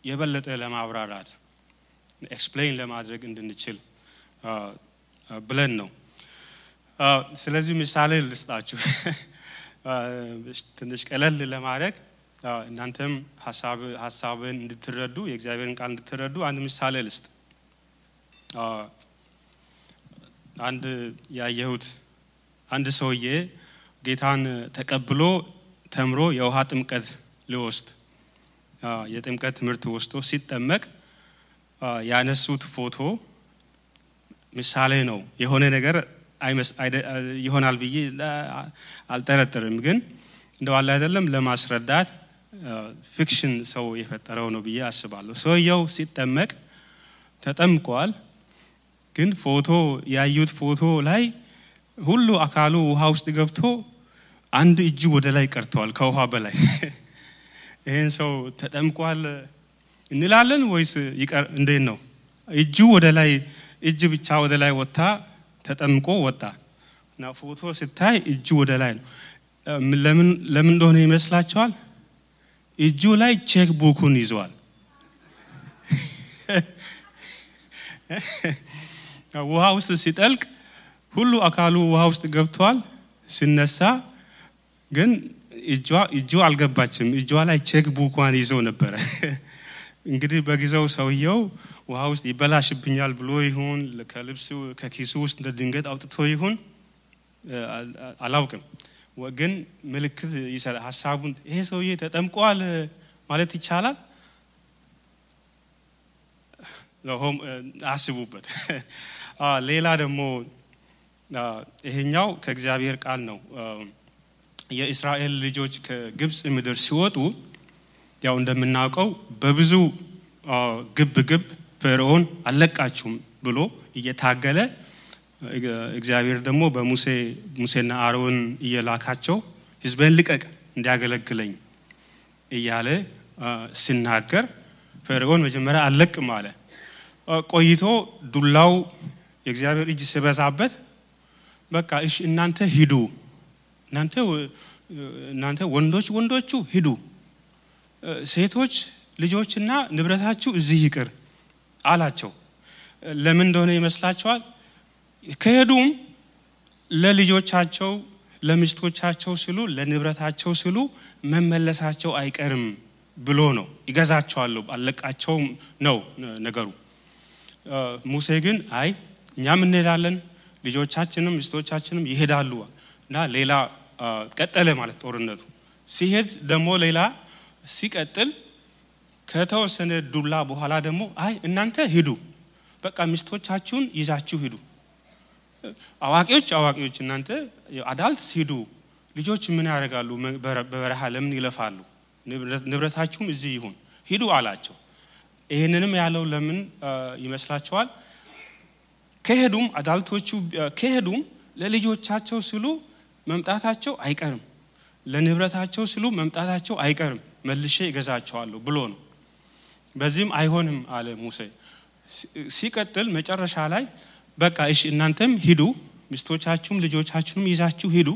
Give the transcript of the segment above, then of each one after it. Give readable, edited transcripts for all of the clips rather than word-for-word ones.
የበለጠ ለማብራራት ኤክስፕሌን ለማድረግ እንድንችል ብለን ነው። ስለዚህ ምሳሌ ልስጣችሁ ትንሽ ቀለል ለማድረግ እናንተም ሐሳብን እንድትረዱ የእግዚአብሔርን ቃል እንድትረዱ አንድ ምሳሌ ልስጥ። አንድ ያየሁት አንድ ሰውዬ ጌታን ተቀብሎ ተምሮ የውሃ ጥምቀት ሊወስድ የጥምቀት ትምህርት ወስዶ ሲጠመቅ ያነሱት ፎቶ ምሳሌ ነው። የሆነ ነገር ይሆናል ብዬ አልጠረጥርም፣ ግን እንደው አለ አይደለም ለማስረዳት ፊክሽን ሰው የፈጠረው ነው ብዬ አስባለሁ። ሰውየው ሲጠመቅ ተጠምቋል፣ ግን ፎቶ ያዩት ፎቶ ላይ ሁሉ አካሉ ውሃ ውስጥ ገብቶ አንድ እጁ ወደ ላይ ቀርቷል ከውሃ በላይ። ይሄን ሰው ተጠምቋል እንላለን ወይስ ይቀር እንዴት ነው? እጁ ወደ ላይ እጅ ብቻ ወደ ላይ ወጣ ተጠምቆ ወጣ እና ፎቶ ሲታይ እጁ ወደ ላይ ነው። ለምን እንደሆነ ይመስላችኋል? እጁ ላይ ቼክ ቡኩን ይዟል። ውሃ ውስጥ ሲጠልቅ ሁሉ አካሉ ውሃ ውስጥ ገብቷል። ሲነሳ ግን እጁ አልገባችም። እጇ ላይ ቼክ ቡኳን ይዞ ነበር። እንግዲህ በጊዜው ሰውየው ውሃ ውስጥ ይበላሽብኛል ብሎ ይሁን ከልብሱ ከኪሱ ውስጥ ድንገት አውጥቶ ይሁን አላውቅም፣ ግን ምልክት ይሰጣል ሐሳቡን። ይሄ ሰውዬ ተጠምቋል ማለት ይቻላል። ለሆም አስቡበት። ሌላ ደግሞ ይሄኛው ከእግዚአብሔር ቃል ነው። የእስራኤል ልጆች ከግብጽ ምድር ሲወጡ ያው እንደምናውቀው በብዙ ግብ ፈርዖን አለቃችሁም ብሎ እየታገለ እግዚአብሔር ደግሞ በሙሴና አሮን እየላካቸው ሕዝቤን ልቀቅ እንዲያገለግለኝ እያለ ሲናገር ፈርዖን መጀመሪያ አለቅም አለ። ቆይቶ ዱላው የእግዚአብሔር እጅ ሲበዛበት በቃ እሺ እናንተ ሂዱ፣ እናንተ ወንዶቹ ሂዱ፣ ሴቶች ልጆችና ንብረታችሁ እዚህ ይቅር አላቸው። ለምን እንደሆነ ይመስላችኋል? ከሄዱም ለልጆቻቸው ለሚስቶቻቸው ሲሉ ለንብረታቸው ሲሉ መመለሳቸው አይቀርም ብሎ ነው። ይገዛቸዋለሁ አለቃቸው ነው ነገሩ። ሙሴ ግን አይ እኛም እንሄዳለን ልጆቻችንም ሚስቶቻችንም ይሄዳሉ እና ሌላ ቀጠለ ማለት ጦርነቱ ሲሄድ ደግሞ ሌላ ሲቀጥል ከተወሰነ ዱላ በኋላ ደግሞ አይ እናንተ ሂዱ በቃ ሚስቶቻችሁን ይዛችሁ ሂዱ፣ አዋቂዎች እናንተ አዳልት ሂዱ፣ ልጆች ምን ያደርጋሉ በበረሃ ለምን ይለፋሉ፣ ንብረታችሁም እዚህ ይሁን ሂዱ አላቸው። ይሄንንም ያለው ለምን ይመስላችኋል? ከሄዱም አዳልቶቹ ከሄዱም ለልጆቻቸው ሲሉ መምጣታቸው አይቀርም፣ ለንብረታቸው ሲሉ መምጣታቸው አይቀርም፣ መልሼ ይገዛቸዋለሁ ብሎ ነው። በዚህም አይሆንም አለ ሙሴ። ሲቀጥል መጨረሻ ላይ በቃ እሺ እናንተም ሂዱ፣ ሚስቶቻችሁም ልጆቻችሁም ይዛችሁ ሂዱ፣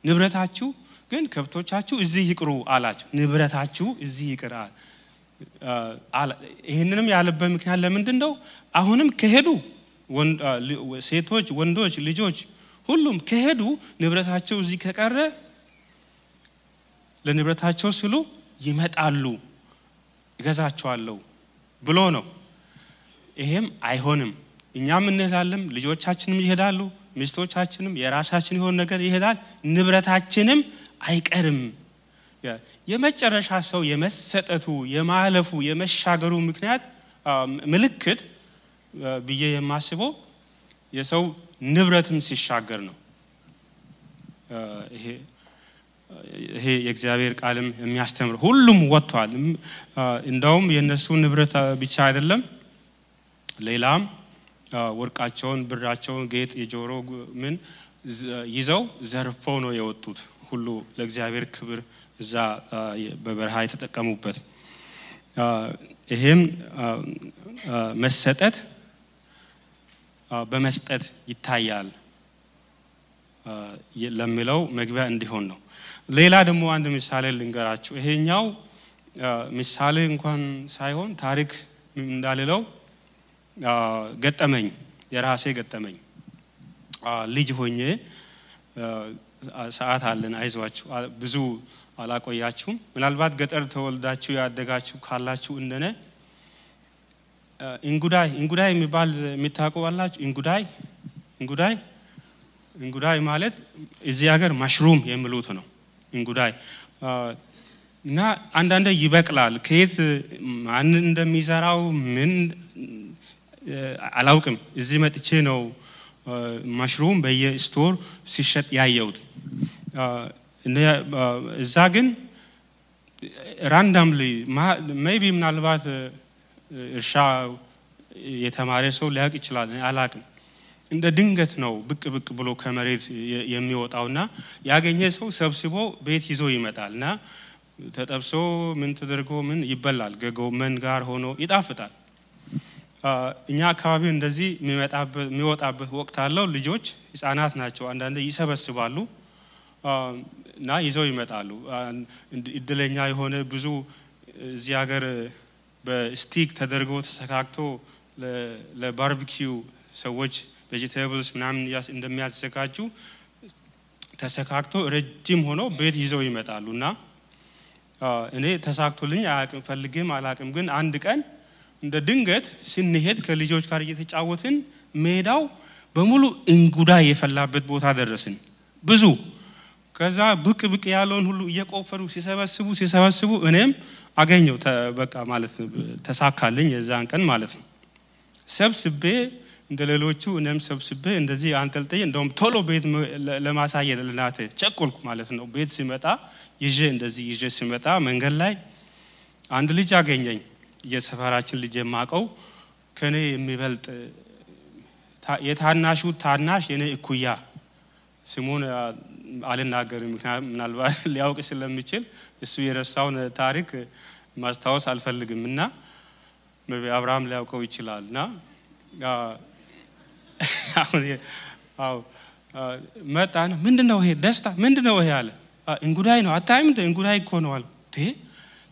ንብረታችሁ ግን ከብቶቻችሁ እዚህ ይቅሩ አላቸው። ንብረታችሁ እዚህ ይቅር አለ። ይሄንንም ያለበት ምክንያት ለምንድን ነው? አሁንም ከሄዱ ሴቶች፣ ወንዶች፣ ልጆች ሁሉም ከሄዱ ንብረታቸው እዚህ ከቀረ ለንብረታቸው ሲሉ ይመጣሉ ይገዛቸዋለሁ ብሎ ነው። ይሄም አይሆንም፣ እኛም እንሄዳለን፣ ልጆቻችንም ይሄዳሉ፣ ሚስቶቻችንም የራሳችን የሆነ ነገር ይሄዳል፣ ንብረታችንም አይቀርም። የመጨረሻ ሰው የመሰጠቱ የማለፉ የመሻገሩ ምክንያት ምልክት ብዬ የማስበው የሰው ንብረትን ሲሻገር ነው። ይሄ የእግዚአብሔር ቃልም የሚያስተምር ሁሉም ወጥቷል። እንደውም የነሱ ንብረት ብቻ አይደለም ሌላም ወርቃቸውን፣ ብራቸውን፣ ጌጥ፣ የጆሮ ምን ይዘው ዘርፈው ነው የወጡት ሁሉ ለእግዚአብሔር ክብር እዛ በበረሃ የተጠቀሙበት። ይሄም መሰጠት በመስጠት ይታያል ለሚለው መግቢያ እንዲሆን ነው። ሌላ ደግሞ አንድ ምሳሌ ልንገራችሁ። ይሄኛው ምሳሌ እንኳን ሳይሆን ታሪክ እንዳልለው ገጠመኝ የራሴ ገጠመኝ ልጅ ሆኜ ሰዓት አለን አይዟችሁ ብዙ አላቆያችሁም ምናልባት ገጠር ተወልዳችሁ ያደጋችሁ ካላችሁ እንደነ እንጉዳይ የሚባል የሚታውቁ አላችሁ እንጉዳይ ማለት እዚህ ሀገር ማሽሩም የሚሉት ነው እንጉዳይ እና አንዳንዴ ይበቅላል ከየት ማን እንደሚዘራው ምን አላውቅም እዚህ መጥቼ ነው ማሽሩም በየስቶር ሲሸጥ ያየሁት እዛ ግን ራንዳምሊ maybe ምናልባት እርሻ የተማረ ሰው ሊያውቅ ይችላል አላውቅም እንደ ድንገት ነው ብቅ ብሎ ከመሬት የሚወጣውና ያገኘ ሰው ሰብስቦ ቤት ይዞ ይመጣልና ተጠብሶ ምን ተደርጎ ምን ይበላል ከጎመን ጋር ሆኖ ይጣፍጣል እኛ አካባቢ እንደዚህ የሚወጣበት ወቅት አለው ልጆች ህፃናት ናቸው አንዳንዴ ይሰበስባሉ እና ይዘው ይመጣሉ እድለኛ የሆነ ብዙ እዚህ ሀገር በስቲክ ተደርጎ ተሰካክቶ ለባርቢኪው ሰዎች ቬጂቴብልስ ምናምን እንደሚያዘጋጁ ተሰካክቶ ረጅም ሆኖ ቤት ይዘው ይመጣሉና እኔ ተሳክቶልኝ አያውቅም ፈልጌም አላውቅም ግን አንድ ቀን እንደ ድንገት ስንሄድ ከልጆች ጋር እየተጫወትን ሜዳው በሙሉ እንጉዳይ የፈላበት ቦታ ደረስን ብዙ ከዛ ብቅ ያለውን ሁሉ እየቆፈሩ ሲሰበስቡ እኔም አገኘው በቃ ማለት ተሳካልኝ የዛን ቀን ማለት ነው ሰብስቤ እንደሌሎቹ እኔም ሰብስቤ እንደዚህ አንጠልጥዬ እንደውም ቶሎ ቤት ለማሳየት ለናተ ቸኮልኩ ማለት ነው ቤት ሲመጣ ይዤ ሲመጣ መንገድ ላይ አንድ ልጅ አገኘኝ የሰፈራችን ልጅ የማቀው ከኔ የሚበልጥ የታናሹ ታናሽ የኔ እኩያ ስሙን አልናገርም ምናልባት ሊያውቅ ስለሚችል እሱ የረሳውን ታሪክ ማስታወስ አልፈልግምና አብርሃም ሊያውቀው ይችላልና አው መጣን ምንድነው ይሄ ደስታ ምንድነው ይሄ አለ እንጉዳይ ነው አታይም እንጉዳይ እኮ ነው አልኩ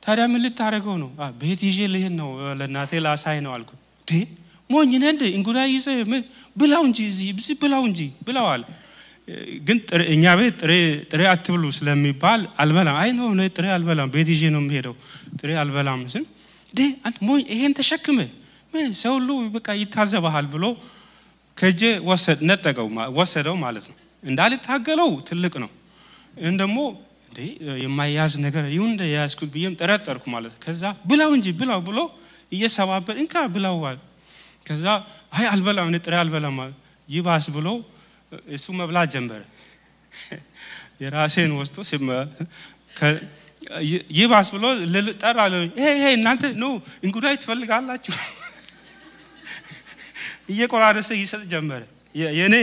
ታዲያ ምን ልታረገው ነው ቤት ይዤ ልሄድ ነው ለናቴ ላሳይ ነው አልኩ ሞኝ ነህ እንጉዳይ ይዘህ ብላው እንጂ እዚህ ብላው እንጂ ብላው አለ ግን እኛ ቤት ጥሬ አትብሉ ስለሚባል አልበላም አይ ነው ጥሬ አልበላም ቤት ይዤ ነው የምሄደው ጥሬ አልበላም ስን አንተ ሞኝ ይሄን ተሸክመ ምን ሰው ሁሉ በቃ ይታዘባል ብሎ ከጄ ወሰደው ማለት ነው እንዳልታገለው ትልቅ ነው እንደሞ የማያዝ ነገር ይሁን ያስኩት ቢየም ተረጠርኩ ማለት ከዛ ብላው እንጂ ብላው ብሎ እየሰባበር እንካ ብላዋል ከዛ አይ አልበላም ጥሬ አልበላም ይባስ ብሎ እሱ መብላት ጀመረ የራሴን ወስቶ ይባስ ብሎ ጠራለ ይሄ እናንተ ነው እንጉዳይ ትፈልጋላችሁ እየቆራረሰ ይሰጥ ጀመረ የኔ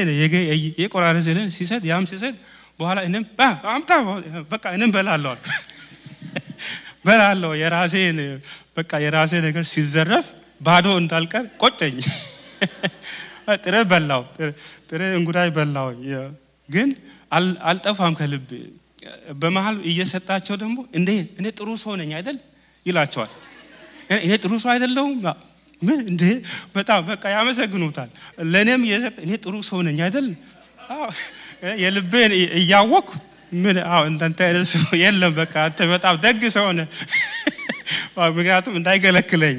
የቆራረሰ ሲሰጥ ያም ሲሰጥ በኋላ እኔም አምጣ በቃ እኔም በላለው የራሴ ነገር ሲዘረፍ ባዶ እንዳልቀር ቆጨኝ ጥሬ እንጉዳይ በላው ግን አልጠፋም ከልብ በመሃል እየሰጣቸው ደግሞ እኔ ጥሩ ሰው ነኝ አይደል ይላቸዋል እኔ ጥሩ ሰው አይደለሁም ምን በጣም በቃ ያመሰግኑታል ለኔም እየሰጠ እኔ ጥሩ ሰው ነኝ አይደል የልቤን እያወኩ ምን እንተ የለም በቃ አንተ በጣም ደግ ሰው ነህ ምክንያቱም እንዳይገለክለኝ